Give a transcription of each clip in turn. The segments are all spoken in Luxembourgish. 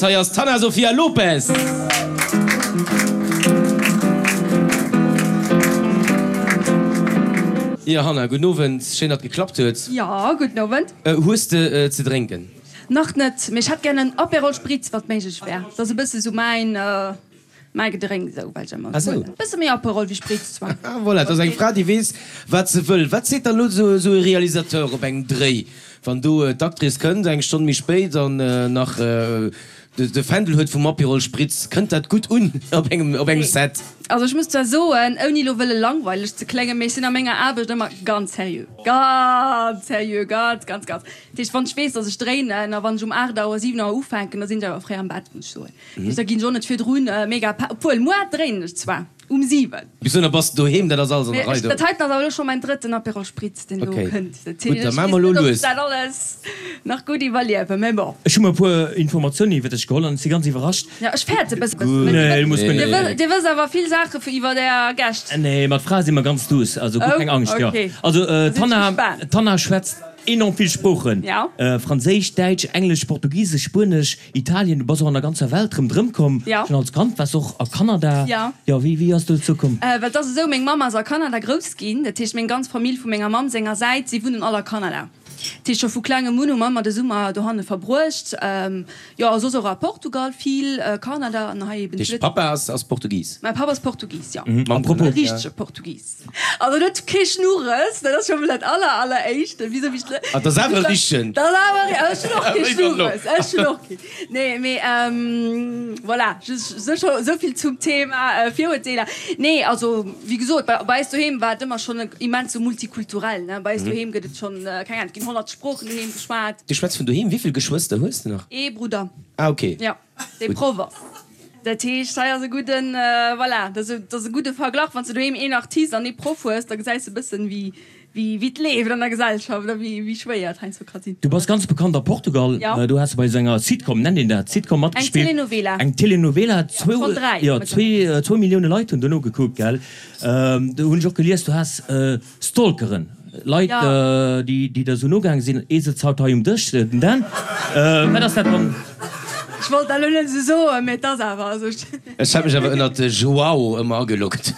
Hei ass d'Hanna Sofia Lopes. Jo Hanna, gudden Owend, schéin datt geklappt huet. Jo, gudden Owend. Hues de ze drénken? Nach net, mee ech hätt gär en Aperol Spritz, wann et méiglech wär. Dat ass e bësse sou mäin, mäi Gedrénks esou, well ech ëmmer Ah sou. E bësse méi Aperol wéi Spritz zwar. Ah voilà, dat ass eng Fra déi weess wat se wëll. Wat seet dann elo sou e Realisateur op engem Dréi, wann do d'Actrice kënnt eng Stonn méi spéit an nach de Fändel huet vum Aperol Spritz? Kënnt dat gutt un op engem op engem Set? Also ech muss zwar soen, ouni elo wëlle langweileg ze kléngen, mee ech sinn a menger Aarbecht ëmmer ganz seriö. Ganz seriö, ganz, ganz, ganz. Dat heescht, wann ech weess, datt ech dréinen a wann ech um 8 Auer, 7 Auer ufänken, da sinn ech awer fréi am Bett, muss ech soen. Dat heescht, da ginn ech och net virdrun mega pa, obwuel muer dréinen ech zwar um 7. Bis dohinner bass de doheem, dat ass alles an der Rei do. Dat heiten ass awer elo scho mäin drëtten Aperol Spritz, deen elo kënnt. Dat Gutt, da heescht, maache ech mer elo weess net, ob lues. ech dat alles nach gutt iwwerliewen, mä bon. Ech hu mer e puer Informatiounen iwwer dech geholl an ech si ganz iwwerrascht. Jo, ech fäerte e bëssen. Nee, du muss guer net. Dir wësst awer vill Saache iwwer Är Gäscht. Nee, mat Frae si mer ganz duuss, also guer keng Angscht. Jo, also d'Hanna, d'Hanna schwätzt enorm vill Sproochen, Franséisch, Däitsch, Englesch, Portugisesch, Spuenesch, Italien. Du bass och an der ganzer Welt rëmdrëm komm. Schonn als Kand waars och a Kanada. Jo, wéi, wéi ass dozou komm? Well et ass esou, meng Mamm ass a Kanada grouss ginn. Dat heescht, meng ganz Famill vu menger Mamm senger Säit, si wunnen all a Kanada. Dat heescht, scho vu klengem un hu mer ëmmer de Summer dohanne verbruecht. Jo, a soss och a Portugal vill, Kanada an hei eben zu Lëtzebuerg. Papa ass Portugis? Mäi Papp ass Portugis, jo. E richtege Portugis. Also en huet kee Schnurres, dat ass scho mol dat aller, alleréischt. Wisou wéi ech. Ah, dat ass awer e richtegen. Dat ass awer, ech hunn och kee Schnurres, ech hunn och kee. Nee, mee voilà, just esou vill zum Thema Virurteeler. Nee, also wéi gesot, bei eis doheem war et ëmmer schonn immens sou multikulturell, ne. Bei eis doheem gëtt et schonn, keng Ahnung, et ginn 100 Sproochen doheem geschwat. Du schwätz vun doheem, wéi vill Geschwëster hues de nach? Ee Brudder. Ah, okay. Jo, dee Proff ass. Dat heescht, hei ass e gudden, voilà, dat ass e gudde Verglach, wann s de doheem een Artist an ee Proff hues, da gesäis de e bëssen, wéi Wéi et leeft an der Gesellschaft a wéi schwéier et heiansdo ka sinn. Du bass ganz bekannt a Portugal. Do has de bei esou enger Sitcom, nennt een dat Sitcom, matgespillt. Eng Telenovela. Eng Telenovela. Jo, schonn 3. Jo, zwou Millioune Leit hunn dono gekuckt, gell? Do hunn ech och gelies, du has Stalkeren, Leit, déi der esou nogaange sinn. Ee sëtzt haut hei um Dësch, den Dan. Wat ass dat dann? Ech wollt dat elo net esou soen, mee et ass awer esou. Ech hat mech awer ënnert de Joao ëmmer ageloggt,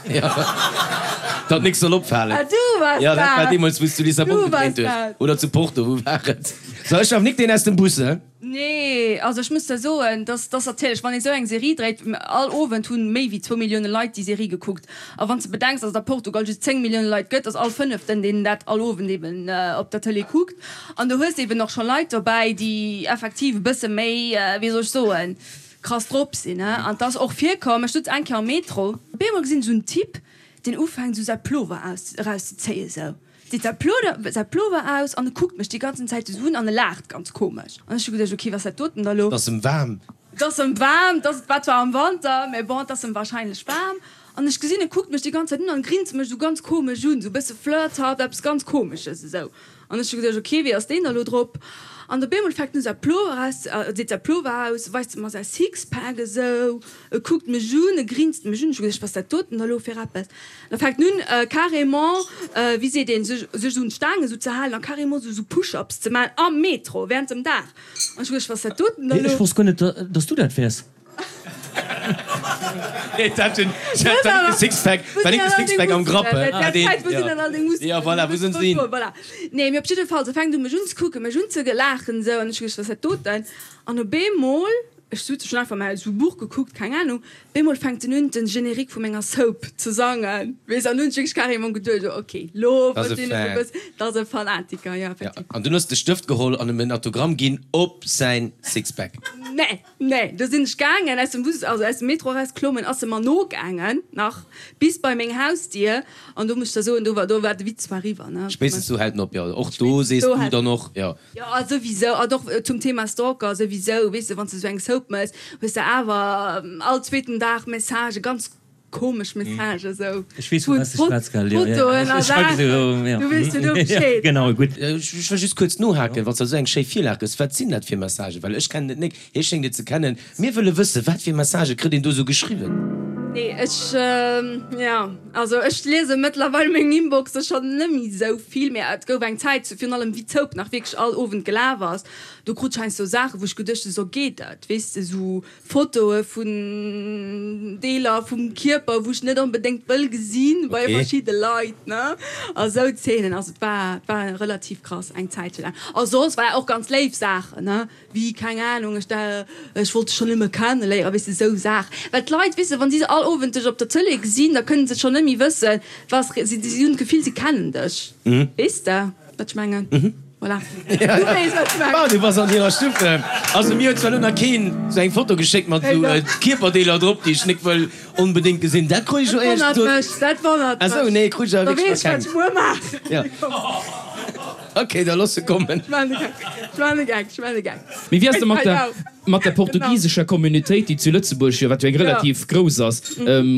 datt nix soll opfalen. Ah, du waars dat! Jo, dat war deemools, wou s du Lissabon gedréint hues. Oder zu Porto, wou war et? So, ech werf nik deen aus dem Bus, he? Nee, also ech muss der soen, dass dass natierlech, wann ee sou eng Serie dréit, all Owend hunn méi wéi zwou Millioune Leit déi Serie gekuckt. A wann s de bedenks, dass et a Portugal just 10 Millioune Leit gëtt, ass all fënneften, deen dat all Owend eben op der Tëlee kuckt. An do hues de eben och scho Leit dobäi, déi effektiv e bësse méi, wéi soll ech soen, krass drop sinn he an 't ass och virkomm, ech sutz eng Kéier am Metro, op eemol gesinn ech esou en Typ deen ufänkt esou säi Plover aus eraus ze zéien esou, zitt säi Ploder säi Plover aus an e kuckt mech déi ganzen Zäit esou un an e laacht ganz komesch an ech hu geduecht ok wat ass dat doten da lo? 't ass em waarm. 't ass em waarm, 't ass war zwar am Wanter mä bon 't ass em wahrscheinlech waarm an ech gesinn e kuckt mech déi ganz Zäit un an grinst mech esou ganz komesch un, esou bësse flirthaft, eppes ganz komesches esou. An ech hu geduecht, ok, wéi ass deen da lo drop? An op eemol fänkt en u säi Plover aus, deet säi Plover aus, weist e mer säi Sixpack esou, e kuckt mech un, e grinst mech un. Ech hu geduecht, wat ass dat doten da lo fir eppes? Da fänkt en un carrément, wéi seet een, sech sech un d'Staang esou ze halen a carrément esou Push-ups ze maachen am Metro während dem Dag. An ech hu geduecht, wat ass dat doten da lo? Ech wosst guer net, dass du dat wäers. Sixpack, war nik de Sixpack am Grapp, he? Ja, voilà, wou sinn se hin? Nee, mee op jidde Fall, se fänkt u mech unzekucken, mech unzelaachen esou, an ech hu geduecht, wat ass dat doten? An op eemol, ech sot, ech hunn einfach mäi esou Buch gekuckt, keng Ahnung, op eemol fänkt en un den Générique vu menger Soap ze sangen, weess, an hunn ech wierklech carrément geduecht, oh ok, lo verstinn ech e bëssen, dat ass e Fanatiker, jo, effektiv. An dunn hues de Stëft geholl an em en Autogramm ginn op säin Sixpack. Nee. Nee, do sinn ech gaangen, aus dem Bus, also aus dem Metro eraus klommen, ass se mer nogaangen nach bis bei meng Hausdier an do muss ech der soen, do war, do war de Witz zwar eriwwer, ne. Spéitstens do hält en op, jo. Och do sees du dann och, jo. Jo, a souwisou, an och zum Thema Stalker, souwisou, weess de, wann s de sou eng Soap mëss, hues de awer all zweeten Dag Messagen, ganz Komesch Message esou. Ech weess vu wat s de schwätz, gell? Jo, jo, Fotoen a Saachen, du weess jo do Bescheed. Genau, gutt. Ech wëll just kuerz nohaken, wann s de esou eng schéi Virlag gëss, wat sinn dat fir Messagen? Well ech kennen et nik, hie schéngt et ze kennen. Mir wëlle wëssen, wat fir Messagë kritt een do esou geschriwwen? Nee, ech, jo, also ech liese mëttlerweil meng Inboxe schonn net méi esou vill, mä et gouf eng Zäit, virun allem wéi d'Soap nach wierklech all Owend gelaf ass, do krut ech heiansdo Saachen, wou ech geduecht hunn, sou geet dat, weess de, sou Fotoe vun Deeler vum Kierper, wou ech net onbedéngt wëll gesinn bei verschidde Leit, ne, a sou Zeenen. Also et war, et war relativ krass eng Zäitche laang. A soss war och ganz léif Saachen, ne. Wéi, keng Ahnung, ech da, ech wollt dech schonn ëmmer kenneléieren, weess de, esou Saachen. Well d'Leit, weess de, wa si se all Owend dech op der Tëlee gesinn, da kënnen se schonn net méi wëssen, was, si, si hunn d'Gefill, si kennen dech. Weess de, wat ech mengen? Voilà. Du weess, wat ech mengen. Bah, du bass an hirer Stuff. Also mir huet zwar elo nach keen esou eng Foto geschéckt mat esou Kierperdeeler drop, déi ech nik wëll onbedéngt gesinn. Dat krut ech elo éierlech gesot. Dat wonnert mech, dat wonnert mech. Ah sou, nee, krut ech awer Da wierklech weess nach ech, wat keng. ech muer maachen. Ja. Ok, da looss se kommen. Mee wéi ass et mat der mat der portugisescher Communautéit, déi zu Lëtzebuerg jo, wat jo eng relativ grouss ass,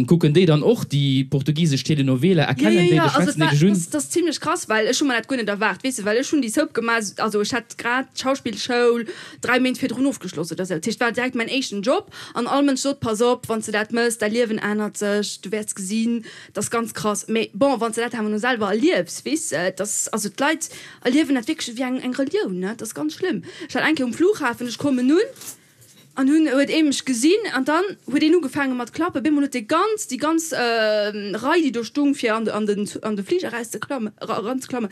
kucken déi dann och déi portugisesch Telenovela, erkennen déi dech, schwätzen déi dech un? Dat ass zimlech krass, well ech hu mer dat guer net erwaart, weess de, well ech hunn déi Soap gemaach, also ech hat grad d'Schauspillschoul 3 Méint virdrun ofgeschloss oder sou, dat heescht, et war direkt mäin éischten Job an all Mënsch sot, pass op, wann s de dat mëss, däi Liewen ännert sech, du wäerts gesinn. Dat ass ganz krass. Mee bon, wann s de dat awer no selwer erliefs, weess de, dass, also d'Leit erliewen dat wierklech ewéi eng, eng Relioun, ne? Dat ass ganz schlëmm. Ech war eng Kéier um Flughafen, ech kommen un an hunn, huet ee mech gesinn an dann huet een ugefaange mat klappen. Bemol huet dee ganz, déi ganz Rei, déi do stung fir an de, an den, an de Fliger erauszeklammen, eranzeklammen,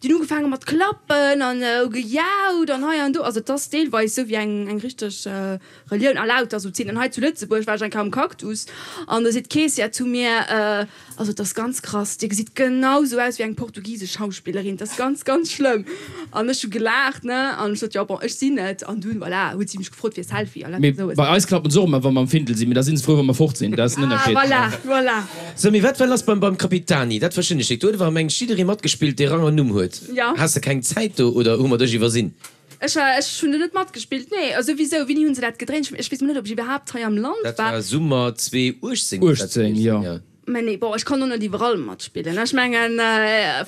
déi hunn ugefaange mat klappen an hu gejaut an hei an do. Also et ass deelweis esou wéi eng, eng richteg Relioun a lauter sou Zeenen. Hei zu Lëtzebuerg war ech eng Kéier am Cactus an do seet d'Keessière zu mir, Also et ass ganz krass, Dir gesitt genau sou aus wéi eng portugisesch Schauspillerin, et ass ganz, ganz schlëmm. An ech hu gelaacht, ne, an ech sot, jo bon, ech sinn et. An dunn, voilà, huet si mech gefrot fir e Selfie a lauter Mee sou. bei eis klappen se och ëmmer, wa mer am Findel sinn, mee da si se frou, wa mer fort sinn. Dat ass den Ah, Ënnerscheed. voilà, voilà. Sou, mee wat war lass beim beim Capitani? Dat verstinn ech nik. Do huet awer mengt jidderee matgespillt, dee Rang an Numm huet. Jo. Has de keng Zäit do oder hu mer dech iwwersinn? Ech war, ech hunn do net matgespillt, nee. Also wisou, wéini hunn se dat gedréint? Ech weess mol net, ob ech iwwerhaapt hei am Land Dat war. war Summer 2018 muss dat 18, gewiescht jo. sinn, jo. Mä nee, bon, ech kann och net iwwerall matspillen. Ech mengen,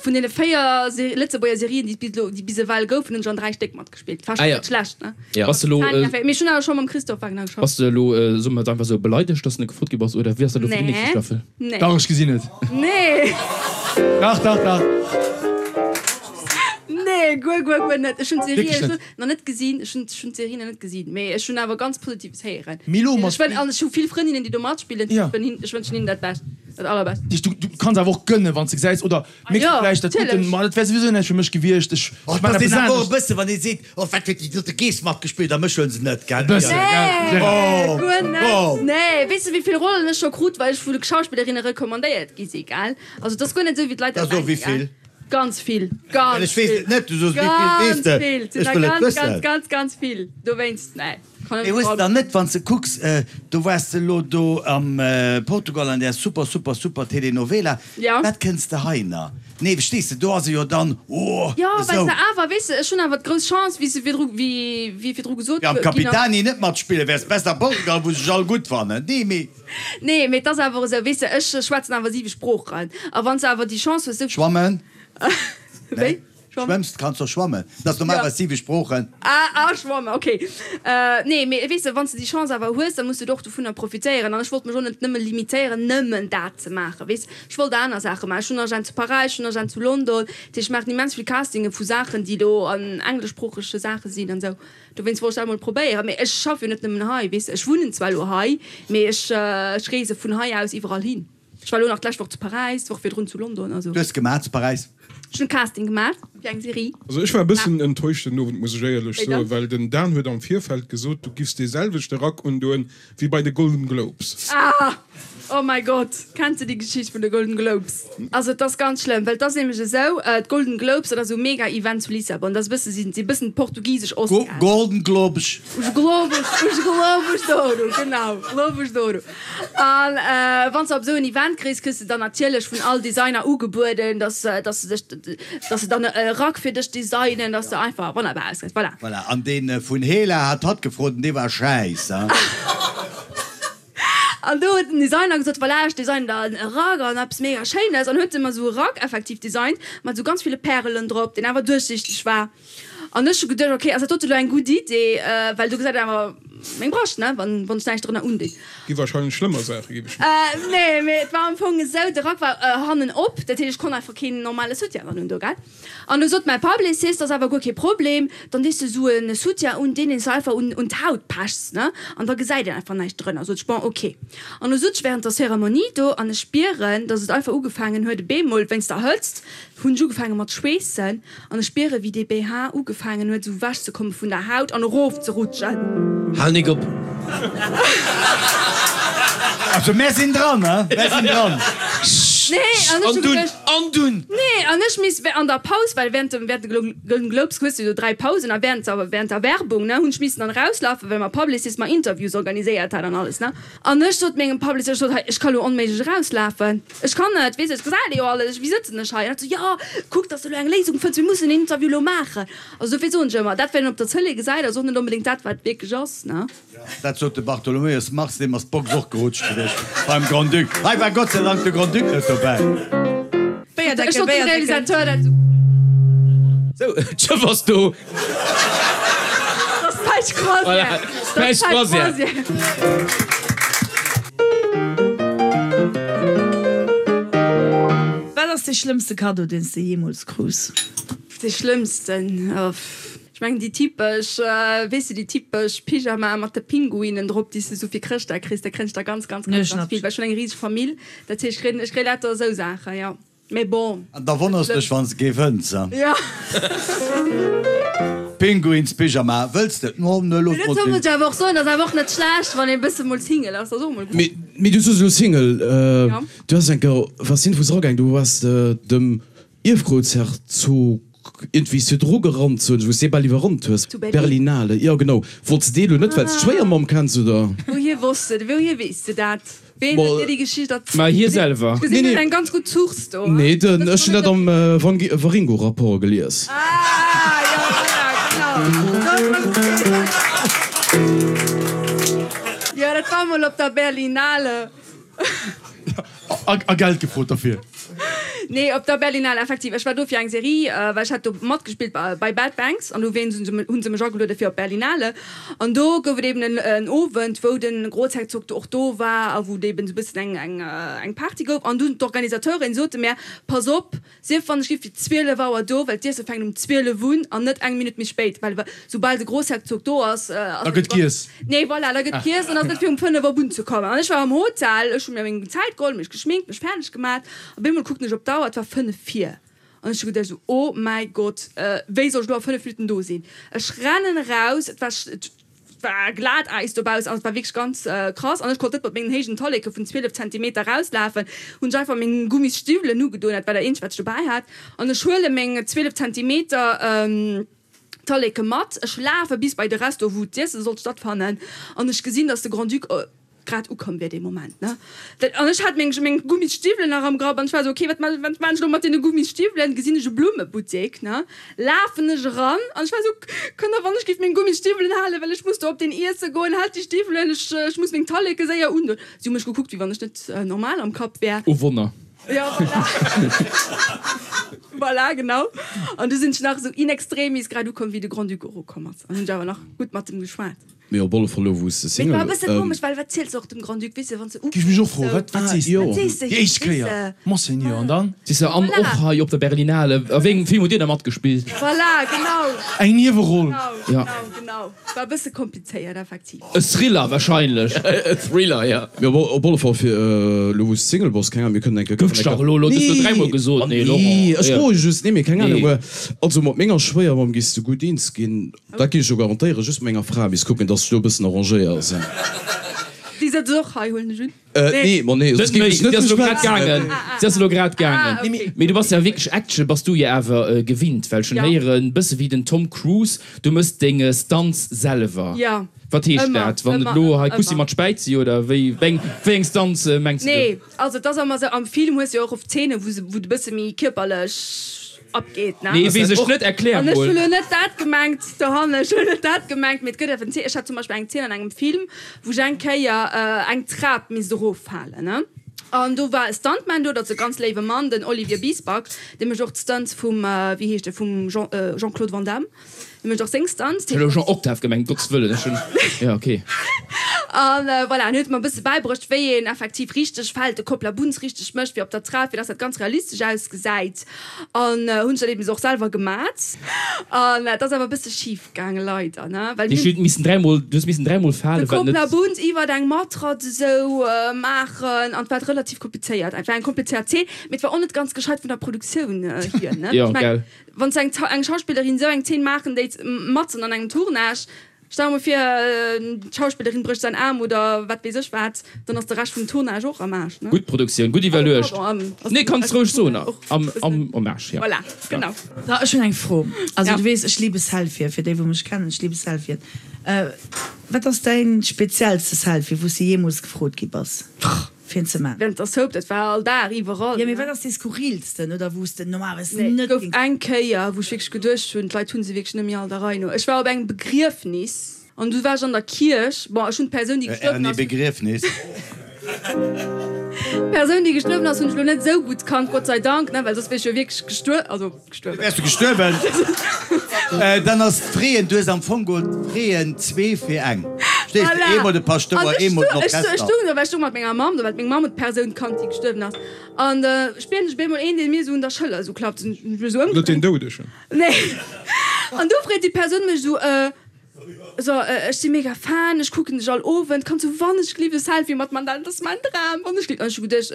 vun deene 4 Se Lëtzebuerger Serien, déi et bis elo, déi bis ewell goufen, hunn ech an 3 Stéck matgespillt. War Ah schonn jo. net schlecht, ne? Jo. Bass de elo, Mee ech hunn awer scho mam Christophe Wagner geschafft. bass de elo, soe mer et einfach esou, beleidegt, dass de net gefrot gi bass, oder wéi ass dat elo fir déi nächste Nee. Staffel? Nee. Dach, ech gesinn et. Nee. Dach, dach, dach. Nee, guer, guer, guer net. Ech hunn d'Serie Wierklech net? nach net gesinn. Ech hunn, ech hunn d'Serie nach net gesinn, mee ech hunn awer ganz Positives héieren. Mee elo mat. Ech wën, an ech hu vill Frëndinnen, déi do matspillen. Ja. Ech wën hin, ech wënschen hinnen dat Bescht, dat Allerbescht. Dich, du, du kanns awer och gënnen, wann s de gesäis, oder Ah méchs du jo, vläicht dat gudden, natierlech. ma dat wär souwisou näischt fir mech gewiescht, ech, Och ech man dass eppes een awer och e anescht. bësse, wann ee seet, oh wat huet déi dote Geess matgespillt a mech huele se net, gell? E bëssen, gell, Nee, Gérard? guer net. Oh. Nee, weess de, wéi vill Rollen ech scho krut, well ech vu de Schauspillerinne recommandéiert gi si, gell? Also, et ass guer net esou, wéi d'Leit Da dat so, denken, wéi gell? vill? Ganz vill, Well ganz ech weess vill, et net, du soos wéi vill weess ganz de? vill, et sinn Ech der wëll et ganz, ganz, wëssen. ganz, ganz vill. Dowéinst, nee, kann Mee ech hues de net. dann net, wann s de kucks, do waars de elo do am Portugal an där super, super, super Telenovela, Ja. wat kënns de hei na? Nee, verstees de, do ass e jo dann, oh, Jo, well esou. se awer, weess de, ech hunn awer d'grouss Chance, wéi se virdru, wéi, wéi virdru gesot Am ginn ass. Capitani net matspillen, wäers besser am Portugal, wou se sech all gutt fannen. Nee, mee. Nee, mee et ass awer esou, weess de, ech schwätzen awer siwe Sproochen. A wann s de awer déi Chance hues, esou. Schwammen? Wéi? Nee. Schwammen? Schwëmms, kanns och schwammen. Dat ass normalerweis siwe Sproochen. Ah, ah, schwammen, okay. Nee, mee weess de, wann s de déi Chance awer hues, da muss de och dovunner profitéieren. An ech wollt mech och net nëmme limitéieren, nëmmen dat ze maachen, weess. Ech wollt aner Saache maachen. Ech hunn Agent zu Paräis, ech hunn Agent zu London. Dat heescht, ech maachen immens vill Castinge vu Saachen, déi elo an engleschsproochege Saache sinn an esou. Dowéinst wollt ech dat emol probéieren. Mee ech schaffe jo net nëmmen hei, weess de. Ech wunnen zwar elo hei, mee ech ech reese vun hei aus iwwerall hin. Ech war elo nach d'lescht Woch zu Paräis, d'Woch virdrun zu London. Also. Du hues gemaach zu Paräis? Ech hunn Casting gemaach fir eng Serie. Also ech war e bëssen enttäuscht den Owend, muss ech éierlech Wéi soen, dann? well den Dan huet am Virfeld gesot, du giffs dee selwechte Rack undoen wéi bei de Golden Globes. Ah! Oh mäi Gott! Kenns de déi Geschicht vun de Golden Globes? Also et ass ganz schlëmm, well et ass nämlech esou, d'Golden Globes, dat ass esou e mega Event zu Lissabon, dat ass e bësse, si si bëssen d'portugisesch Oscars. Golden Globes. Os Globos, os Globos d'Ouro, genau, Globos d'Ouro. An wann s de op esou en Event kriss, kriss de dann natierlech vun all Designer ugebueden, dass dass se dech, dass se dann e Rack fir dech designen, dass de einfach wonnerbar ausgesäis. Voilà. Voilà, an dee vun Hela hat hatt gefrot an dee war schäiss, hein. An do huet den Designer gesot, voilà, ech designen der e Rack an eppes mega Schéines. An huet e mer esou e Rack effektiv designt, mat esou ganz ville Pärelen drop, deen awer duerchsiichteg war. An ech hu geduecht, ok, ass dat dote lo eng gutt Idee, well do gesäit et awer. meng Brascht, ne, wann wann ech näischt drënner undinn. Gi wahrscheinlech schlëmmer Saache, géif ech mengen. Nee, mee et war am Fong esou, de Rack war hannen op, dat heescht, ech konnt einfach keen normale Soutien dran hunn do, gell. An du sot mäi Publicist, ass awer guer kee Problem, dann dees de sou e Soutien un, deen een s einfach un un d'Haut pechs, ne, an da gesäit een einfach näischt drënner. Sot ech, bon, ok. An du sot ech während der Zeremonie do an ech spieren, dass et einfach ugefaangen huet, e bemol wéinst der Hëtzt hunn ech ugefaange mat schweessen an ech spiere wéi dee BH ugefaangen huet sou wech ze komme vun der Haut an erof ze rutschen. Hal nik op! Also mär sinn dran, he? Mär sinn dran. Nee, an ech An hu dunn, geduecht. an dunn! Nee, an ech misst an der Paus, well während dem, während de Golden Globes hues du jo 3 Pausen a während der, während der Werbung, ne, hunn ech missen dann erauslafen, well mäi Publicist mer Interviews organiséiert hat an alles, ne. An ech sot mengem Publicist, ech sot, hei, ech ka lo onméiglech erauslafen, ech kann net, weess de, ech gesäit ee jo alles, wéi sëtzen ech hei? An hat sou, jo, kuck, dass de lo eng Léisung fënns, mir mussen en Interview lo maachen. Also dofir soen ech ëmmer, dat wat een op der Tëlee gesäit, ass och net onbedéngt dat, wat wierklech ass, ne. Dat sot de Bartholomäus Marx, deem ass d'Box och gerutscht gewiescht beim Grand-Duc. Hei war Gott sei Dank de Grand-Duc net dobäi. Ech sot dem Realisateur dat esou. Sou, d'Schëff ass do. Dat ass d'falsch Croisière. Dat ass d'falsch Croisière. Wat ass dee schlëmmste Kaddo, deen s de jeemools krus? Dee schlëmmsten? Ech mengen déi typesch, weess de, déi typesch Pyjamae mat de Pinguinen drop, déi s de sou fir Chrëschtdag kriss, da kréien ech der ganz, ganz, ganz, ganz vill, well ech hunn eng riseg Famill, dat heescht, ech kréien, ech kréie lauter esou Saachen, jo. Mee bon. An da wonners dech, wann s de kee fënns, he? Jo. Pinguinspyjama, wëlls de? No, ne, looss Mee mol dozou sinn. muss ech awer och soen, ass awer och net schlecht, wann ee bësse mol Single ass, ass och mol gutt. Mee, mee du soos elo Single, Jo. du has eng Kéier, was sinn, wou s eragaang, du waars dem Ierfgroussherzog iergendwéi s du dru gerannt soen ech, wou s de bal iwwerrannt hues. Zu Berlin. Berlinale, jo genau. Wollts de dee lo net, well s d'Schwéiermamm kenns, oder? Wouhier wosst de, wouhier weess de dat? Ween huet dir déi Geschicht erzielt? Ma hie selwer. Ech gesinn, du hues eng ganz gutt Source do. Nee, den, ech hunn dat am Waringo-Rapport gelies. Ah, jo, voilà, genau. Jo, dat war mol op der Berlinale. A Geld gefrot derfir? Nee, op der Berlinale effektiv. Ech war do fir eng Serie, well ech hat do matgespillt bei Bad Banks an do hunn se mech ageluede fir op d'Berlinale. An do gouf et eben en Owend, wou de Großherzog do och do war a wou et eben esou e bëssen eng Party gouf. An dunn d'Organisateuren sote mär, Pass op, Sief wann ech gi fir 12 Auer do, well d'Iesse fänkt um 12 un an net eng Minutt méi spéit, well soubal de Grossherzog do ass, ass Da gëtt giess. Nee, voilà, da gëtt giess an ass net fir um 5 op unzekommen. An ech war am Hotel, ech hu mir meng Zäit geholl, mech geschminkt, mech fäerdeg gemat. Op eemol kucken ech op d'Auer, et war 5 vir. An ech hu geduecht esou, Oh mäi Gott, wéi soll ech elo a 5 Minutten do sinn? Ech rennen eraus, et war Et war Glatäis dobaussen, also et war wierklech ganz krass an ech konnt net mat mengen héijen Talleke vun 12 Zentimeter rauslafen. Hunn ech einfach meng Gummisstiwwelen ugedoen, dat war dat eenzegt wat ech dobäi hat, an ech huele meng 12 Zentimeter Talleke mat. Ech lafe bis bei de Resto wou d'Iesse sollt stattfannen an ech gesinn, dass de Grand-Duc grad ukomm wier dee Moment, ne. Dat, an ech hat meng, meng Gummisstiwwelen nach am Grapp an ech war esou, okay, wat ma, wat maan ech elo mat deene Gummisstiwwelen? Gesinn ech e Blummebuttek, ne, lafen ech eran an ech war esou, Kënnt der wann ech géif meng Gummisstiwwelen halen, well ech muss do op deen Iesse goen, haalt déi Stiwwelen, ech, ech muss meng Talleke séier undoen. Si hu mech gekuckt, wéi wann ech net normal am Kapp wär. Oh Wonner. Jo, voilà. Voilà, genau. An du sinn ech nach esou in extremis grad ukomm, wéi de Grand-Duc erokomm ass an hunn ech awer nach gutt mat em geschwat. Mee op alle Fall elo wou s de Mee et Single. war e bësse komesch, well wat ziels de och dem Grand-Duc, weess de, wann s de Géif mech och ufänks froen, esou, wat wat sees de? wat sees de Déi him, éischt weess Kéier, de? Monseigneur, an dann? Siehst de, an Voilà. och hei op der Berlinale, a wéi engem Film hutt Dir da matgespillt? Voilà, genau. Eng Nieweroll. Genau, Ja. genau, genau. War e bësse komplizéiert, effektiv. E Thriller wahrscheinlech. E Thriller, ja. Mee op op alle Fall fir elo wou s de Single bass, keng Ahnung, mir kënnen eng Kéier. Gouf dech dach elo, elo hues du dräimol gesot, nee, Laurent. Nee, ech froe just, nee, mee keng Ahnung, Nee. also mat menger Schwéiermamm giss de gutt eens ginn. Dat géif ech jo garantéieren, just mat menger Fra misst kucken, dass ech do e bëssen arrangéiert sinn. Déi sëtzt och hei, huelen ech un? Nee, ma nee, Net soss géif méi, ech net si ass elo grad schwätzen. gaangen. Si ass elo grad gaangen. Ah, okay. Mee du bass ja wierklech Action bass du jo awer gewinnt, well ech hunn Ja. héieren, bësse wéi den Tom Cruise, du mëss deng Stunts selwer. Ja. Wat heescht Ëmmer, dat? Wann et ëmmer, elo hei ëmmer. Kussi mat Späizi oder wéi, wéi eng Stunts mengs de do? Nee, also et ass ëmmer esou, am Film hues du jo och oft Zeenen, wou se, wou de bësse méi kierperlech abgeet, ne? Nee, weess ech net, erklär An ech mol. hu lo net dat gemengt dohannen, ech hu net dat gemengt, mee et gëtt eventuell, ech hat zum Beispill eng Zeen an engem Film, wou ech eng Kéier eng Trap misst eroffalen, ne? An do war e Stuntman do, dat ass e ganz léiwe Mann, den Olivier Biesbach, dee mécht och d'Stunts vum, wéi heescht e, vum Jean, Jean-Claude Van Damme. Dee mécht och seng Stunts. Ech hunn elo Jean Octave gemengt, Gottes Wëllen, ech hunn, jo ok. An voilà, en huet mer e bësse bäibruecht, wéi een effektiv richteg fält, de Kopplabunz richteg mécht, fir op der Trap, fir dass dat ganz realistesch ausgesäit. An hunn ech dat eben och selwer gemat. An dat ass awer e bësse schif gaangen, leider, ne, well mir hunn. Missen dräimol, du hues missen dräimol falen, wat net. De Kopplabunz iwwert eng Matratz esou maachen an et war relativ komplizéiert. Et war eng komplizéiert Zeen, mee et war och net ganz gescheit vun der Produktioun hier, ne. Jo, gell. Wann s eng eng Schauspillerin esou eng Zeen maachen déit matzen an engem Tournage, stell der mol vir d'Schauspillerin brécht säin Aarm oder wat weess ech wat, dann ass de Rescht vum Tournage och am Aarsch, ne? Gutt Produktioun, gutt iwwerluecht. Nee, kanns roueg soen, am am Aarsch, jo. Voilà, genau. So, ech hunn eng Fro. Also du weess, ech liebe Selfien, fir déi wou mech kennen, ech liebe Selfien. Wat ass däin speziellste Selfie wou s de jeemools gefrot gi bass? Fir en ze man. Während der Soap, dat war all Dag, iwwerall. Jo, mee wat ass dee skurrilsten oder wou s de normalerweis Nee, net gouf eng Kéier, wou ech wierklech geduecht hunn, d'Leit hu se wierklech net méi all der Rei no. Ech war op engem Begriefnis an du war ech an der Kierch. Bon, ech hunn d'Persoun, déi gestuerwen Erni ass. Begriefnis. D'Persoun, déi gestuerwen ass, hunn ech elo net esou gutt kannt, Gott sei Dank, ne, well soss wier ech jo wierklech gestuer, also gestuerwen. Wäers du gestuerwen? Dann ass d'Freeën, du hues am Fong geholl d'Freeën zwee fir eng. Verstees de? Eemol de Paschtouer, eemol den Orchester. Ech stoung do, well ech stoung mat menger Mamm do, well meng Mamm huet d'Persoun kannt, déi gestuerwen ass. An da spieren ech op eemol een, dee mir esou un der Schëller esou klappt. Hunn ech mech esou ëmgedréint. Net deen Doudegen? Nee. An du freet déi Persoun mech esou, So, ech si mega Fan, ech kucken dech all Owend, kanns du wannechgelift e Selfie mat man, dat ass mäin Dram, wannechgelift. An ech hu geduecht,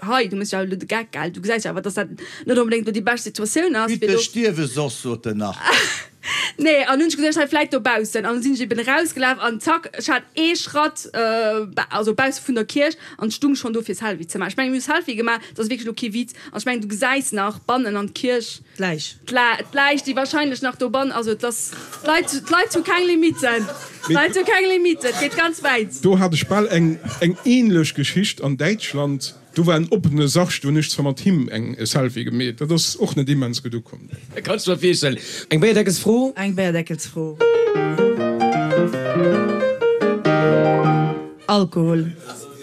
hei, du méchs jo awer elo de Geck, gell, du gesäis jo awer, dass dat net onbedéngt elo déi bescht Situatioun ass, fir Bitte do. stierwe soss, sot en nach. Nee, an hunn ech geduecht, hei vläit dobaussen. An da sinn ech eben erausgelaf an zack, ech hat ee Schratt, also bausse vun der Kierch an stung schonn do fir Selfie ze maachen. Ech mengen, mir hu Selfie gemaach, dat ass wierklech elo kee Witz. An ech mengen, du gesäis nach bannen an d'Kierch. D'Läich. D'Läich, déi wahrscheinlech nach dobannen, also et ass, d'Leit, d'Leit hu keng Limiten, d'Leit hu keng Limiten, et geet ganz wäit. Do hat ech bal eng eng ähnlech Geschicht an Däitschland. Do war en oppene Sarg, do hunn ech zwar mat him eng e Selfie gemeet, dat ass och net immens gutt ukomm. Kann ech mer virstellen. Eng Béierdeckelsfro? Eng Béierdeckelsfro. Alkohol.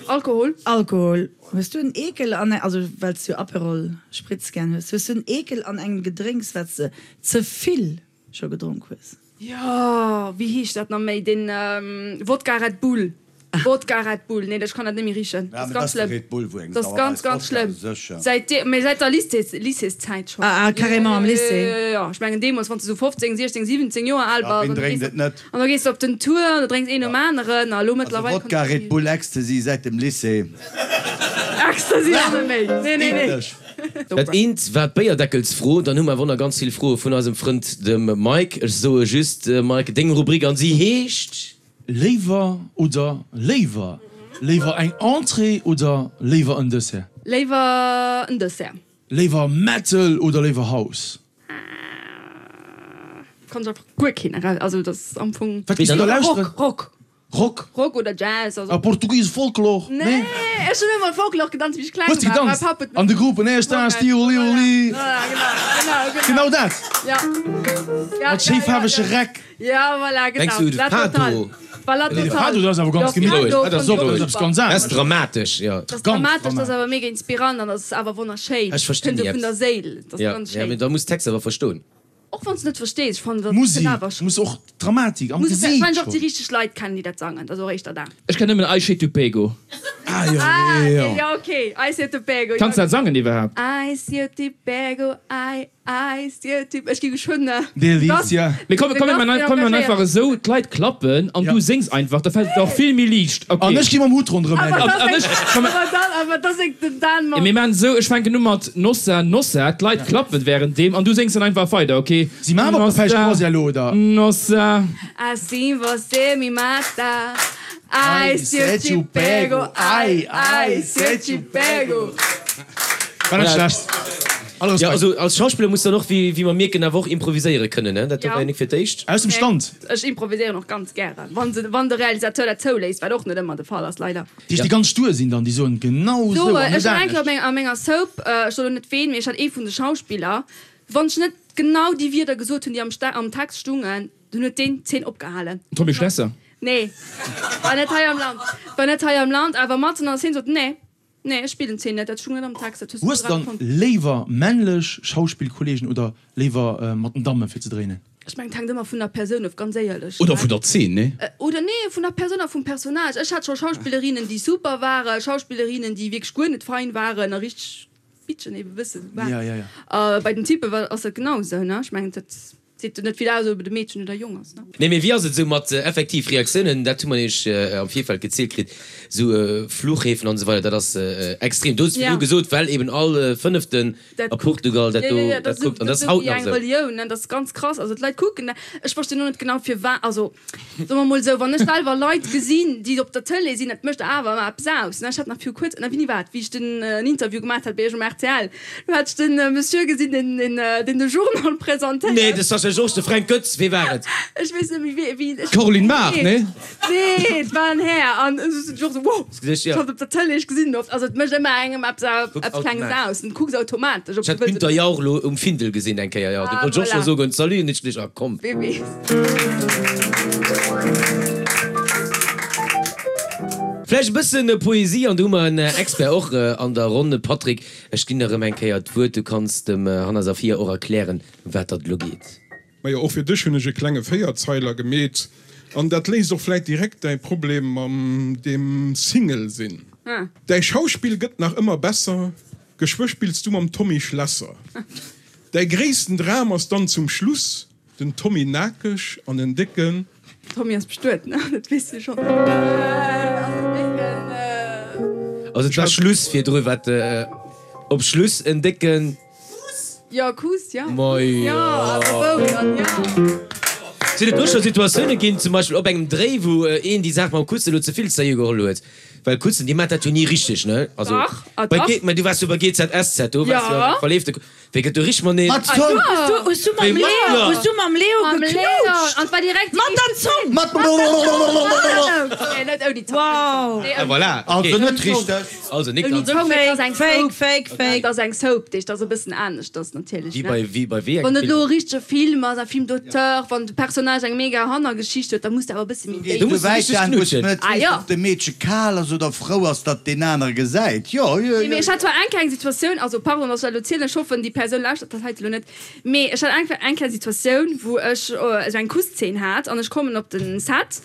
Alkohol. Alkohol. Hues du en Eekel an, also well s du Aperol Spritz gären hues, hues du en Eekel an engem Gedrénks wat s de ze vill scho gedronk hues? Jo, wéi heescht dat nach méi, deen Wodka Red Bull, Wodka Red Bull, nee ech kann dat net méi richen, dat ass ganz schlëmm, dat ass ganz ganz schlëmm, säit deem, mee säit der Lycées, Lycéeszäit schonn. Ah, carrément am Lycée? Jo, jo, jo, ech mengen deemools wann s de sou 15, 16, 17 Joer al bass an du gees op. An da gees de op den Tour an da drénks een nom aneren a lo mëttlerweil. Also Wodka, Red Bull, Ecstasy säit dem Lycée. Ecstasy ass net méi, nee, nee, nee. Dat eent war d'Béierdeckelsfro, dann hu mer awer och nach ganz vill Froe vun eisem Frënd dem Mike. Ech soe just, Mike, deng Rubrik an si heescht. Léiwer oder léiwer? Léiwer eng Entrée oder léiwer en Dessert? Léiwer en Dessert. Léiwer Metal oder léiwer House? Kann ech einfach guer keen eraus, also dat ass am Fong. Wat gees du da lauschteren? Rock, Rock. Rock? Rock oder Jazz, also. A Portugies Folklor? Nee, ech hunn ëmmer Folklor gedanzt wéi ech kleng Hues de war. gedanzt? Mäi Papp huet An de Gruppen, Esta, Sti, Oli, Oli. Voilà, genau, genau, genau. Genau dat? Ja. Ja, Mat schéi faarwege Räck. Ja, voilà, genau. Mengs du de La Fado? Totale. War La Nee, de Totale. Fado, dat ass awer ganz Jo, gemittlech. Fado Dat ass fand och ech och eppes super. ganz Dat ass anescht. dramatesch, jo. Dat ass Ganz dramatesch, dat ass dramatesch. awer mega inspirant an dat ass awer wonnerschéin. Ech verstinn Kënnt déi sou vun der Apps. Séil, dat ass Ja, ganz ja, schéin. mee da muss d'Text awer verstoen. Och wann s de net verstees, ech fannen dat Musik kënnt awer schon. muss och d'Dramatik am Muss Gesiit wahrscheinlech och déi schon. richteg Leit kennen, déi dat sangen, dat ass och éischter dat. Ech kenn nëmmen Ai se te pego. Ah jo, Ah, jo, jo. jo, okay, Ai se te pego, jo. Kanns dat sangen iwwerhaapt? Ai se te pego, ai, ai se te, ech gi geschwënn Delizia. Mee komm, komm, mir man, komm, mir man einfach esou, d'Leit klappen an du séngs einfach, da fält et der och vill méi liicht. Okay. An ech gi mam Hutt ronderëm hänken. An, an ech, komm, Awer dann, awer da séngt den Dan mat. Mir man esou, ech fänken u mat Nossa, Nossa, d'Leit klappen währenddeem an du séngs dann einfach weider, okay? Si man awer op der Croisière elo, oder? Nossa. Assim você me mata, ai se eu te pego, ai, ai se eu te pego. War net schlecht. All Ja, Respekt. also als Schauspiller muss dann och, wéi wéi mer mierken, awer och improviséiere kënnen, ne? Dat do Ja. war jo nik fir d'éischt. Aus dem Stand. Ech improviséieren och ganz gären, wann se, wann de Realisateur dat zouléisst, wat och net ëmmer de Fall ass, leider. Déi déi ganz stur sinn dann, déi soen genau So, esou an ech net hat eng Kéier op anescht. meng, a menger Soap, ech soen elo net ween, mee ech hat ee vun de Schauspiller, wann ech net genau déi Wierder gesot hunn, déi am Ste am Text stungen, dunn huet deen d'Zeen opgehalen. Tommy Schlesser? Nee, war net hei am Land, war net hei am Land, awer matzen an der Szene sot, nee, nee, ech spillen d'Zeen net, dat stung net am Text, dat hues du Hues grad dann erfonnt. léiwer männlech Schauspillkollegen oder léiwer mat den Dammen fir ze dréinen? Ech mengen, et hänkt ëmmer vun der Persoun of, ganz éierlech. Oder vun der Zeen, nee? Oder nee, vun der Persoun a vum Personnage. Ech hat scho Schauspillerinnen, déi super waren, Schauspillerinnen, déi wierklech guer net fein waren a richteg Bitchen ebe bësse sou waren. A bei den Typpe ass dat genau esou, ne? Ech mengen, dat seet jo net vill aus, ob et e Meedchen oder e Jong ass, ne? Nee, mee wéi ass et esou mat effektiv Reaktiounen? Dat hu mer nämlech am Virfeld gezielt kritt, esou Fluchhäfen an esou weider, dat ass extrem. Du hues virdru gesot, well eben all Fënneften Dat A Portugal, dat do, ja, ja, dat kuckt, an dat ass haut nach esou. Eng Relioun, ne, dat ass ganz krass. Also d'Leit kucken dat. Ech verstinn och net genau firwat. Also soe mer mol esou, wann ech selwer Leit gesinn, déi op der Tëlee sinn, dat mécht awer ëmmer eppes aus, ne. Ech hat nach viru kuerzem, na wéini war et, wéi ech den en Interview gemaat hat bei iech um rtl, do hat ech den Monsieur gesinn, deen deen deen de Journal presentéiert. Nee, de Sascha Georges, de Fränk Goetz, wee war et? Ech weess net méi wee, wéi. D'Caroline Mart, nee? Nee, et war en Här an ech sot och esou, wow! Ech hat op der Tëlee, ech gesinn en oft. Also et mécht ëmmer engem eppes eppes Klenges aus. Du kucks automatesch, ob du wëlls. Ech hat Günther Jauch elo um Findel gesinn eng Kéier, jo. Do wollt ech och scho soen, Salut, an ech geduecht, ah komm. Wee weess. Vläicht e bëssen Poesie, an do hu mer en Expert och an der Ronn. Patrick, ech ginn der erëm eng Kéier d'Wuert, du kanns dem Hanna Safiya och erklären, ëm wat datt elo geet. Majo, och fir dech hunn ech e klenge Véierzeiler gemeet. An dat léist och vläit direkt däi Problem mam deem Single sinn. Däi Schauspill gëtt nach ëmmer besser, geschwë spills du mam Tommy Schlesser. Däi gréissten Dram ass dann zum Schluss den Tommy nakeg an en décken. Tommy ass bestuet, ne? Dat weess de schonn. An en décken. Also et war Schluss virdru, wat op Schluss en décken. Kuss? Jo, Kuss, jo. Majo. Jo, awer wou dann, jo. Sinn et do scho Situatioune ginn, zum Beispill op engem Dréi, wou een déi Saach mam Kussen elo ze vill sérieux geholl huet? Well Kussen, déi maacht dat jo ni richteg, ne? Also, Dach, ah bei dach. G, mä du waars jo bei GZSZ, do waars jo Ja. eng verleefte Ku, wéi gëtt do richteg mateneen? Mat Zong! Hues du, hues du mam Wéi mat, Leo, jo. hues du mam Leo Mam Leo, geknutscht? an 't war direkt déi Mat der éischt Zong! Mat. Nee, net ouni Zong. Wow! Nee, Ah, ouni voilà, Also okay. net richteg. Also, nik Ouni ganz. Zong, et ass eng Fake, Soap. fake, fake. Et ass eng Soap, déi ass e bëssen aneschters natierlech, Wéi ne? bei, wéi bei wéi engem Wann et Film? elo e richtege Film ass, e Film d'auteur, wann de Personnage eng mega Hannergeschicht huet, da muss de awer e bësse méi Geet Du déif. muss esou wäit richteg daan, wou s knutschen. de net Ah weess, jo. ob de Meedche kal ass oder frou ass, datt deen anere gesäit. Jo, jo, Nee, mee jo. ech hat zwar eng kleng Situatioun, also pardon, datt ech dat elo zielen, ech hoffen, déi Persoun lauschtert dat heite elo net, mee ech hat eng eng kleng Situatioun, wou ech esou eng Kusszeen hat an ech kommen op den Set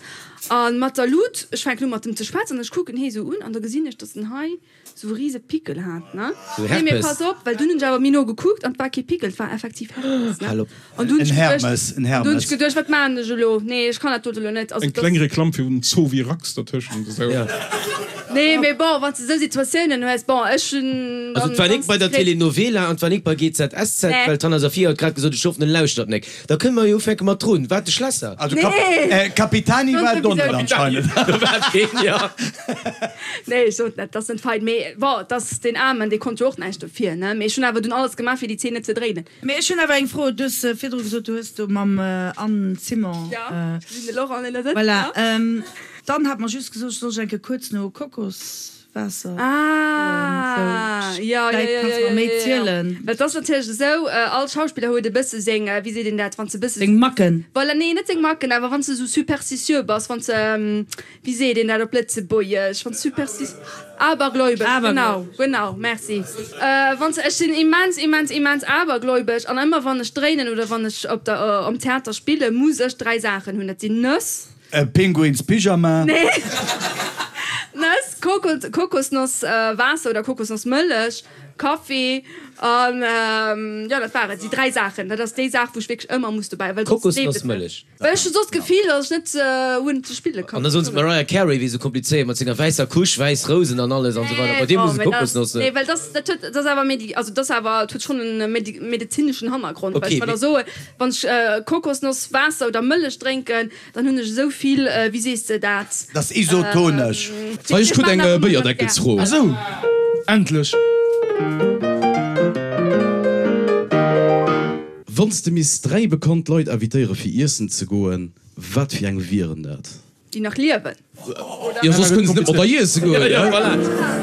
a mat der Lut, ech fänken u mat em ze schwätzen an ech kucken hee esou un an da gesinn ech, datt en hei Sou rise Pickel hat ne. Sou Nee mee Herpes. pass op, well dunn hunn ech awer méi no gekuckt an 't war kee Pickel, 't war effektiv Herpes ne. Hal op. An dunn hunn En ech geduecht, Hermes, en dunn hunn Hermes. ech geduecht, wat maachen ech elo? Nee ech kann dat dote elo net. Also Eng dass. kleng Reklamm fir den Zovirax dertëschent esou. Ja. Nee mee bon, wann s de sou Situatiounen hues, bon ech hunn Also dann 't war nik ganz bei der diskret. Telenovela an 't war nik bei GZSZ, Nee. well d'Hanna Safiya huet grad gesot, ech hoffen en lauschtert nek. Da kënne mer jo ufänke mat drun. Wat de Schlesser? Also Kap Nee. äh, Capitani Sonst war et och net sowieso net. anscheinend. Do war et keen, jo. Nee, ech sot net, dat ass net fein. Mee bon, et ass deen Aarmen, dee konnt jo och näischt dofir, ne? Mee ech hunn awer dunn alles gemaach, fir déi Zeen net ze dréinen. Mee ech hunn awer eng Fro. Du hues virdru gesot, du hues do mam Anne Simon. Jo, ech gesinn de Laurent, deen do sëtzt, Voilà. jo. D'Anne hat mer just gesot, ech soll ech eng Kéier kuerz no Kokoswaasser froen. Ah, Sou, jo, jo, vläit jo, kanns jo, mer méi jo, jo. zielen. Well et ass natierlech esou, all Schauspiller huet e bësse seng, wéi seet een dat, wann s de e bësse. Seng Macken. Voilà, nee, net seng Macken, awer wann s de esou superstitieux bass, wann s de. Wéi seet een dat op Lëtzebuergesch? Wann superstis. Abergläubesch, genau, genau, merci. Wann s, ech sinn immens, immens, immens abergläubesch an ëmmer wann ech dréinen oder wann ech op der, am Theater spillen, muss ech 3 Saachen hunn. Dat sinn Nëss. E Pinguinspyjama. Nee. Nëss, Kokos, Kokosnoss Waasser oder Kokosnossmëllech, Kaffi an, jo, dat war et. Déi 3 Saachen. Dat ass déi Saach, wou ech wierklech ëmmer muss dobäi, well soss leeft et net. Kokosnossmëllech. Well ech hun soss d'Gefill, dass ech net hunn ze spille kann. An da soen se d'Mariah Carey wier sou komplizéiert mat senger wäisser Couche, wäiss Rousen an alles an sou weider. Bei dir muss et Kokosnoss sinn. Nee, well dass dat huet, dat ass awer medi, also dat ass awer, et huet schonn en medezineschen Hannergrond. Well ech mer da soen, wann ech Kokosnoss Waasser oder Mëllech drénken, dann hunn ech esou vill, wéi sees de dat? Dat ass isotonesch. Hei, ech krut eng Béierdeckelsfro. Ah sou, endlech! Wann s de misst 3 bekannt Leit invitéiere fir iessen ze goen, wat fir eng wieren dat? Déi nach liewen, oder? Jo, soss kënne se net mat der iesse goen, Jo, voilà,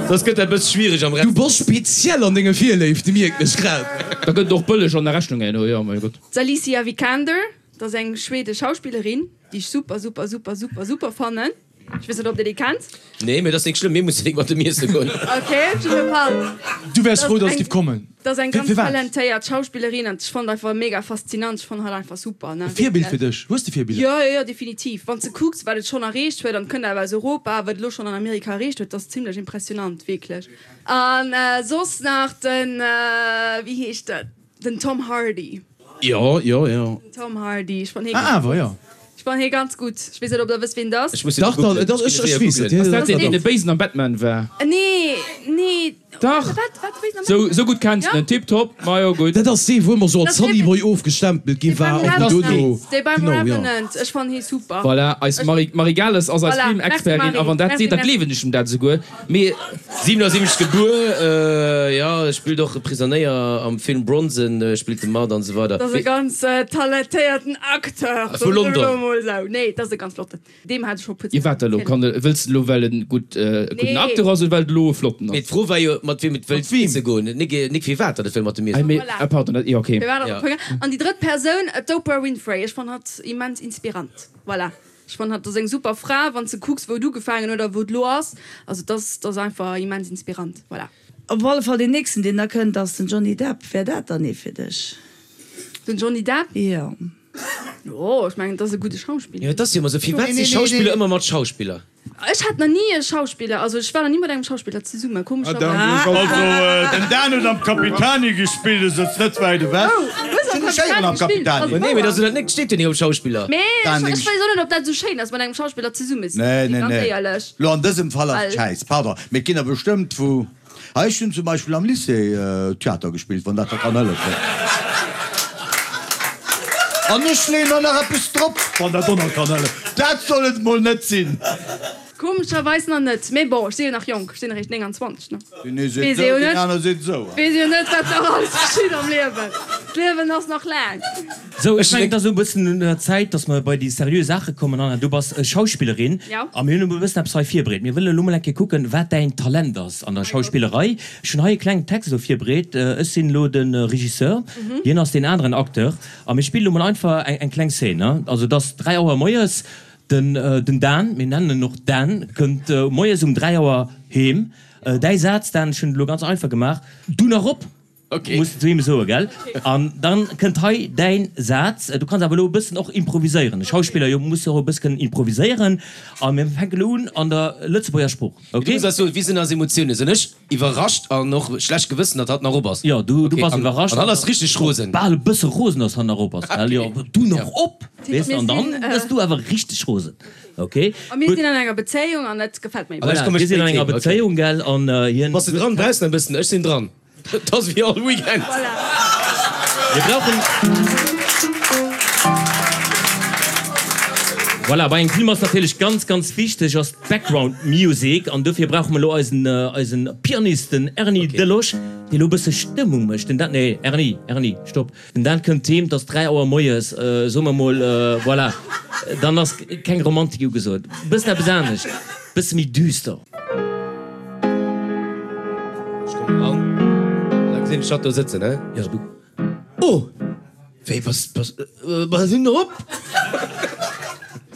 soss gëtt dat bësse schwiereg am Du bass speziell an denge Virléifte, mierken ech grad. Da gëtt et och bëlleg an der Rechnung herno, jo, mein Gott. D'Alicia Vikander, dat ass eng schwedesch Schauspillerin, déi ech super, super, super, super, super fannen. Ech weess net, ob Dir déi kennt. Nee, mee dat ass nik schlëmm, mir mussen nik mat dem Iesse goen. Ok, op jidde Fall. Du wäers frou, dass et giff kommen. Dat ass eng ganz Firwat? talentéiert Schauspillerin an ech fannen einfach mega faszinant. Ech fannen hatt einfach super, ne, E Virbild wierklech. fir dech? Hues de Virbiller? Jo, jo, jo, definitiv. Wann s de kucks, wat et schonn erreecht huet, an et kënnt awer aus Europa, wat et elo schonn an Amerika erreecht huet, dat ass zimlech impressionant, wierklech. An soss nach den, wéi heescht en, den Tom Hardy. Jo, jo, jo. Den Tom Hardy, ech fannen hie Ah, ganz awer, gutt. jo. Ech fannen hie ganz gutt. Ech weess net, ob der wësst, wien et ass. Ech muss hien Dach, dach, googlen. dach, Ech ech, ginn ech e séier weess et. googlen. Jo, Ass dat jo, deen, deen dach. de Béisen am Batman war? Nee, nee. Dach! Wat, wat, Béisen am Sou, Batman? sou gutt kenns de Ja? en. Tiptop, majo, gutt. Dat ass dee, wou ëmmer sou als Dat ass dee, Sunny Boy ofgestempelt gi dee war beim an Revenant. dono, Dee beim genau, jo. Revenant. Ech fannen hie super. Voilà, eis Ech. Marie, Marie Gales ass eis Voilà, merci Filmexpertin a Marie. wann dat Merci, seet, da merci. gleewen ech em dat esouguer. Mee. 77 gebuer, jo, spillt och e Prisonéier am Film Bronson, spillt de mat an esou weider. Dat ass e ganz talentéierten Acteur, Vu soen ech elo London. mol esou. Nee, dat ass e ganz flotten. Deem hat ech scho puer Ier wat elo? Kann e, wëlls de elo well en gutt, e gudden Nee. Acteur ass oder well et elo e flotten Mee ass? d'Fro war jo, mat wiem et wëllt Mat wiem? iesse goen, nik, nik firwat datt et wëll mat dem Ei, iessen. mee, Voilà. ah, pardon, dat, jo, okay. Firwat ass Ja. op Hunger? An déi drëtt Persoun, d'Oprah Winfrey. Ech fannen hatt immens inspirant. Voilà. Ech fannen hatt ass eng super Fra, wann s de kucks wou et ugefaangen huet a wou et elo ass. Also dat ass, dat ass einfach immens inspirant. Voilà. Op alle Fall deen nächsten deen da kënnt ass den Johnny Depp. Wär dat dann ee fir dech? Den Johnny Depp? Jo. Jo, ech mengen, dat ass e gudde Schauspiller. Jo, et ass jo ëmmer esou, firwat si Schauspiller ëmmer mat Schauspiller? Ech hat nach ni e Schauspiller, also ech war nach ni mat engem Schauspiller zesummen, komescherweis. Also den Dan huet am Capitani gespillt, e sëtzt net wäit ewech. Oh, hues am Sinn ech éieren Capitani am gespillt? Capitani. Ass Nee, mee wouer. dat ass jo net, steet jo ni op Schauspiller. Mee Dan, ech deng ech weess och net, ob dat esou schéin ass, mat engem Schauspiller zesummen ze Nee, sinn, nee, ganz nee. éierlech. Lo an dësem Fall ass et Well. schäiss, pardon, mee et ginn der bestëmmt wou. Ah, ech hunn zum Beispill am Lycée Theater gespillt, wann dat der kann hëllefen. An ech leeën der nach eppes drop, wann dat och nach kann hëllefen. Dat soll et mol net sinn. Komescherweis nach net, mee bon, ech si jo nach jonk, ech sinn eréischt 29, ne? Deen ee seet Weess esou, ee jo deen net, aner seet esou. weess ee jo net, wat nach alles geschitt am Liewen. D'Liewen ass nach laang. Sou, ech mengen, et ass elo e bëssen un der Zäit, dass mer bei déi seriö Saache kommen. Anna, du bass Schauspillerin a mir hunn elo e bëssen eppes hei virbereet. Mir wëllen elo mol eng Kéier kucken, wat däin Talent ass an der Schauspillerei. Ech hunn hei e klengen Text elo virbereet. Ech sinn elo de Regisseur, hien ass deen aneren Acteur a mir spillen elo mol einfach eng kleng Szene. Also, et ass 3 Auer moies, den Dan, mir nennen en och Dan, kënnt moies um 3 Auer heem. Däi Saz, Dan, ech hunn et elo ganz einfach gemaach, Du nach op! Okay. Muss de zu him soen, gell? An dann kënnt hei däin Saz. Du kanns awer elo e bëssen och improviséieren. E Schauspiller, jo, muss jo och e bësse kënnen improviséieren. A mir fänken elo un an der Lëtzebuerger Sprooch, Du okay? muss eis soen, wéi sinn eis Emotiounen? Sinn ech iwwerrascht an och schlecht Gewëssen, datt hatt nach op ass? Jo, du, du Okay, bass an, iwwerrascht. an hatt ass richteg rosen. Bal e bësse rosen, datt hatt nach op ass, gell? Jo, du nach op, weess de? Mir An dann sinn, gëss du awer richteg rosen, okay? A mir Gutt. sinn an enger Bezéiung an dat gefält mir An ech Voilà, komme mir sinn spéit an enger heem, okay. Bezéiung, gell? An hien. Bass de dran? Brauchs de nach e bëssen? Ech sinn dran. Et ass wéi all Weekend. Mir brauchen. Voilà, bei engem Film ass natierlech ganz, ganz wichteg ass d'Background Music an dofir brauche mer elo eisen, eisen Pianist, den Erny Delosch, dee elo e bësse Stëmmung mécht. Den Dan, nee, Erny, Erny, stopp. Den Dan kënnt heem, et ass 3 Auer moies, soe mer mol, voilà, dann ass keng Romantik ugesot. E bëssen eppes anescht, e bësse méi düster. Ech kommen eran, an da gesinn ech hatt do sëtzen, he? Jo, du. Oh! Wéi, bass, bass, bass du nach op?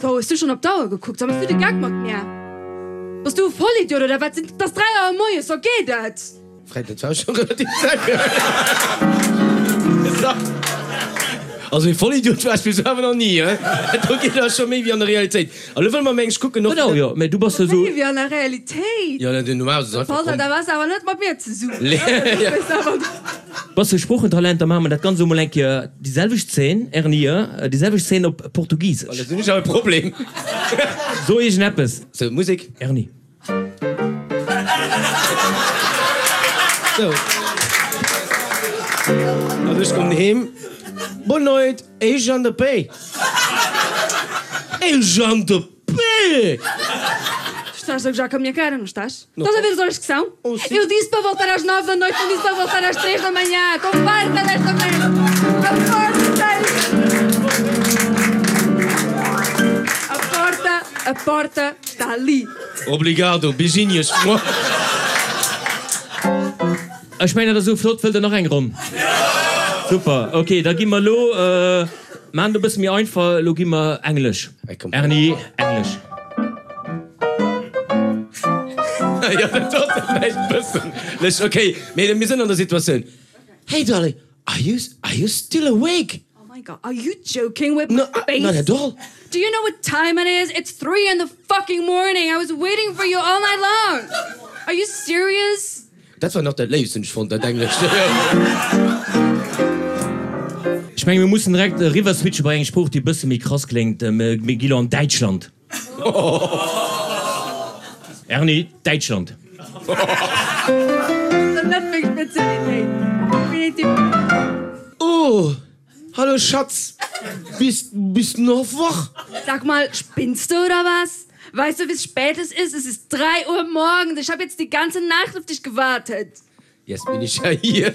Wou, hues du schonn op d'Auer gekuckt? Sag, Méchs du de Geck mat mär? Bass du e Vollidiot oder wat? Et ass 3 Auer moies, wa geet et? Fred, dat war scho relativ séier. Also ee Vollidiot war ech bis elo awer nach ni, he? Do geet awer scho méi wéi an der Realitéit. A lo wëlle mer mengs kucken och. Genau, jo, mä du bass jo esou. Méi wéi an der Realitéit? Jo, den normal ass einfach komm. Da bass awer net mat mir zesummen, ne? Bass de Sproochetalent, da maache mer dat Ganzt elo mol eng Kéier déi selwecht Zeen, Erni, déi selwecht Zeen op Portugisesch. Oh, dat hunn ech awer e Problem. So iergendeppes. Sou, Musek. Erni. Sou. An ech kommen heem. Boa noite, eu já ando a pé. Eu já ando a pé! Tu estás a gozar com a minha cara, não estás? Estás a ver as horas que são? Eu disse para voltar às 9 da noite, não disse para voltar às 3 da manhã. Estou farta desta merda. A porta A porta, a porta está ali. Obrigado, beijinhos. Ech mengen dat ass esou flott. Wëllt der nach eng Ronn? Super, ok, da gi mer elo, maachen et e bësse méi einfach, elo gi mer Englesch. Erni, Englesch. Jo, dat ass vläicht e bëssen lech. Okay, mee mir sinn an der Situatioun. Hey darling, are you, are you still awake? Oh my God, are you joking with my face? No, not at all. Do you know what time it is? It's 3 in the fucking morning. I was waiting for you all night long. Are you serious? Dat war nach dat Léifst, hunn ech fonnt, dat Englescht. Ech menge mir mussen direkt eriwwer switche bei eng Sprooch, déi e bësse méi krass kléngt. Mir gi lo an Däitschland. Erni, Däitschland. Net meng Spezialitéit, definitiv net. Oh, hallo Schatz, bist, bist du noch wach? Sag mal, spinnst du oder was? Weißt du, wie spät es ist? Es ist 3 Uhr morgens. Ich habe jetzt die ganze Nacht auf dich gewartet. Jetzt bin ich ja hier.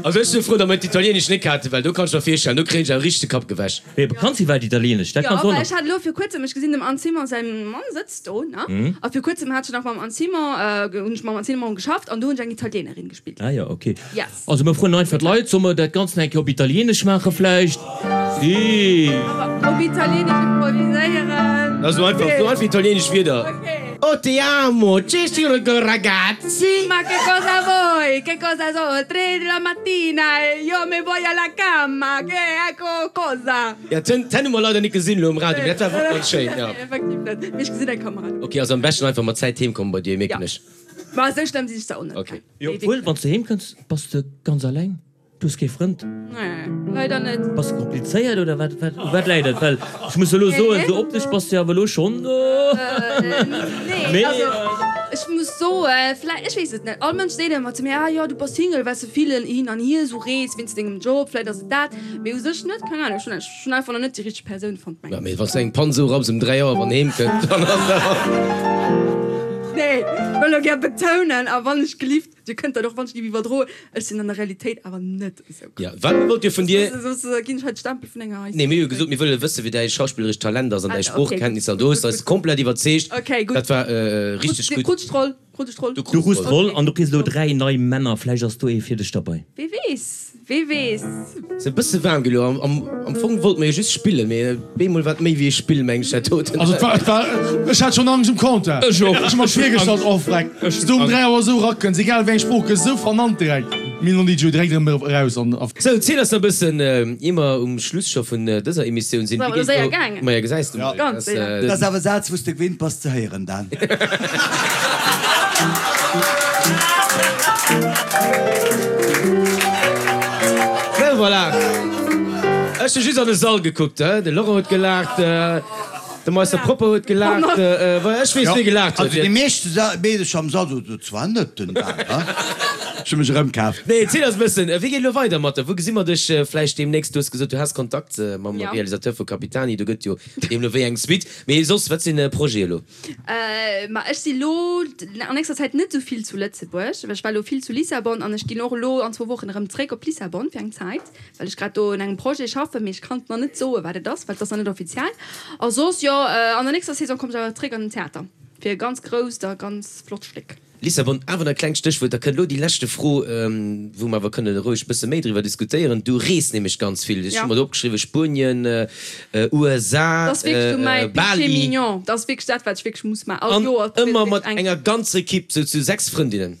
Also ech si frou, datt mer d'Italienesch net haten, well do kann ech mer virstellen, do kréien ech awer richteg de Kapp gewäsch. Mee kanns iwwerhaapt Italienesch? Dat Jo, kanns du och well nach. ech hat elo vir kuerzem, ech gesinn dem Anne Simon säi Mann sëtzt do, ne? A vir kuerzem hat ech nach mam Anne Simon, hunn ech mam Anne Simon geschafft an do hunn ech eng Italienerin gespillt. Ah jo, ok. Yes. Also mir froen einfach d'Leit, soll mer dat Ganzt nach eng Kéier op Italienesch maache vläicht? Si. Awer op Italienesch improviséieren. Also einfach, so einfach italienesch Wierder. Ok. Oh ti amo, ci sono ragazzi? Ma che cosa vuoi? Che cosa sono? Tre della mattina e io me voglio alla camma, che ecco cosa? Ja, d'Hänn hu mer leider net gesinn elo um Radio, mee dat war wierklech ganz schéin, ja. Nee, effektiv net. Mee ech gesinn eng Kamera. Ok, also am beschten einfach mat Zäit heem kommen bei dir, mierken ech. Ma esou schlëmm sinn ech zwar och net. Ok. Jo, obwuel, wann s de heem kënns, bass de ganz alleng. Du hues kee Frënd? Nee, leider net. Bass de komplizéiert oder wat, wat, u wat läit et? Well ech muss elo soen, esou optesch bass de jo awer elo schonn. Nee, also ech muss soen, vläicht, ech weess et net. All Mënsch seet ëmmer zu mir, ah jo, du bass Single, well s de vill hin an hier esou rees wéinst dengem Job, vläicht ass et dat. Mee u sech net, keng Ahnung, ech hunn ech hunn einfach nach net déi richteg Persoun fonnt, mengen ech. Mee wann s de eng Pann esou rapps ëm 3 Auer wann heem kënnt, dann ass dat. Nee, ech wëll elo gär betounen, a wann ech gelift, Dir kënnt dat och wann ech géif iwwerdroen, ech sinn an der Realitéit awer net esou Ja, wat wollt Dir vun dir? Soss ginn ech hei de Stempel vun enger. Nee, mir hu jo gesot, mir wëlle wësse wéi däi schauspillerescht Talent ass an däi Sproochkenntnisser an du hues eis komplett iwwerzeegt. Okay, gutt. Dat war richteg gutt. Krut ech d'Roll? Krut ech d'Roll? Du Du krus d'Roll an du kriss elo 3 nei Männer, vläicht ass do ee fir dech derbei. Wee weess? Wee weess? Ass e bësse waarm gi lo. Am Fong wollt mer jo just spillen, mee beemol war et méi wéi e Spill, meng ech dat doten. Also et war, et war, ech hat schonn Angscht um Compteur. Ech och. Ech hu mer virgestallt, oh freck, s du um 3 Auer esou erakënns, egal wéi eng Sprooch, gëss esou vernannt direkt. Mir hunn déi jo direkt erëm eraus an. Sou, ziel eis nach e bëssen, ier mer um Schluss scho vun dëser Emissioun sinn, Ass awer wéi elo geet séier elo. gaangen. Maja, gesäis de mol. Ganz séier. Dat ass awer e Saz, wou s de gewinnt bass ze héieren, Dan. Sou, voilà. Ech hu just an de Sall gekuckt, de Laurent huet gelaacht, de Meister Propper huet gelaacht, voilà, ech weess, wie gelaacht huet. Also déi meescht Meedercher am Sall soten, Dat war net den Dan, he? Ech hu mech erëmkaaft. Nee, ziel eis e bëssen, wéi geet elo weider mat der? Wou gesi mer dech vläicht deemnächst? Du hues gesot, du has Kontakt mam Realisateur vu Capitani, do gëtt jo deemno wéi eng Suite. Mee soss, wat sinn Projete elo? Ma ech si lo an nächster Zäit net esou vill zu Lëtzebuerg, well ech war lo vill zu Lissabon an ech ginn och elo an zwou Wochen erëm zréck op Lissabon fir eng Zäit, well ech grad do un engem Projet schaffen, mee ech kann nach net soen, wat et ass, well et ass nach net offiziell. A soss, jo, an der nächster Saison kommen ech awer zréck an den Theater fir e ganz grousst a ganz flott Stéck. Lissabon, awer nach e klengt Stéchwuert, da kënnt elo déi leschte Fro, wou mer awer kënne roueg e bësse méi driwwer diskutéieren. Du rees nämlech ganz vill. Ech hu mer do opgeschriwwen, Spuenien, USA, Dat ass wierklech sou mäi péché Bali. mignon. Dat ass wierklech dat, wat ech wierklech muss maachen. All An Joer ëmmer wierklech mat eng. enger ganzer Ekipp, sou zu 6 Frëndinnen.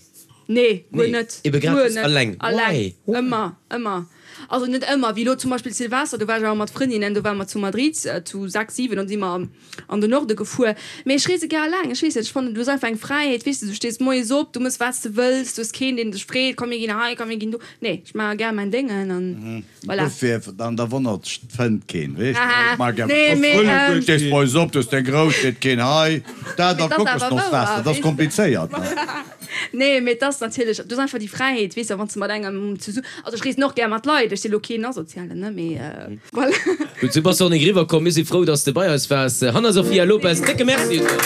Nee, guer Nee, net. ebe grad Guer just net. alleng. Alleng. Why? Why? Ëmmer, ëmmer. Also net ëmmer, wéi elo zum Beispill Silvester, do war ech awer mat Frëndinnen, do ware mer zu Madrid zu 6, 7 an si mer an den Norde gefuer. Mee ech reese gär alleng, ech weess net, ech fannen du hues einfach eng Fräiheet, weess de, du stees moies op, du mëss wat s de wëlls, du hues keen deen dech freet, komm mir ginn hei, komm mir ginn do. Nee, ech maache gär mäin Déngen an voilà. Dofir, an da wonnert dech, fënnt keen, weess de, ech maache gär Nee, mee, Du stees moies op, du hues deng Grouss, seet keen hei, dat Mee a 't ass awer Kokosnosswaasser, wouer, dat ass weess de. komplizéiert, ne? Nee, mee et ass natierlech, du hues einfach déi Fräiheet, weess de, wann s de mat engem zesu, also ech reesen och gär mat Leit, ech si lo keen Asozialen, ne, mee voilà. Gutt, sou bass de och nik eriwwer komm. Mir si frou, dass de bei eis waars. Hanna Sofia Lopes, décke Merci un dech.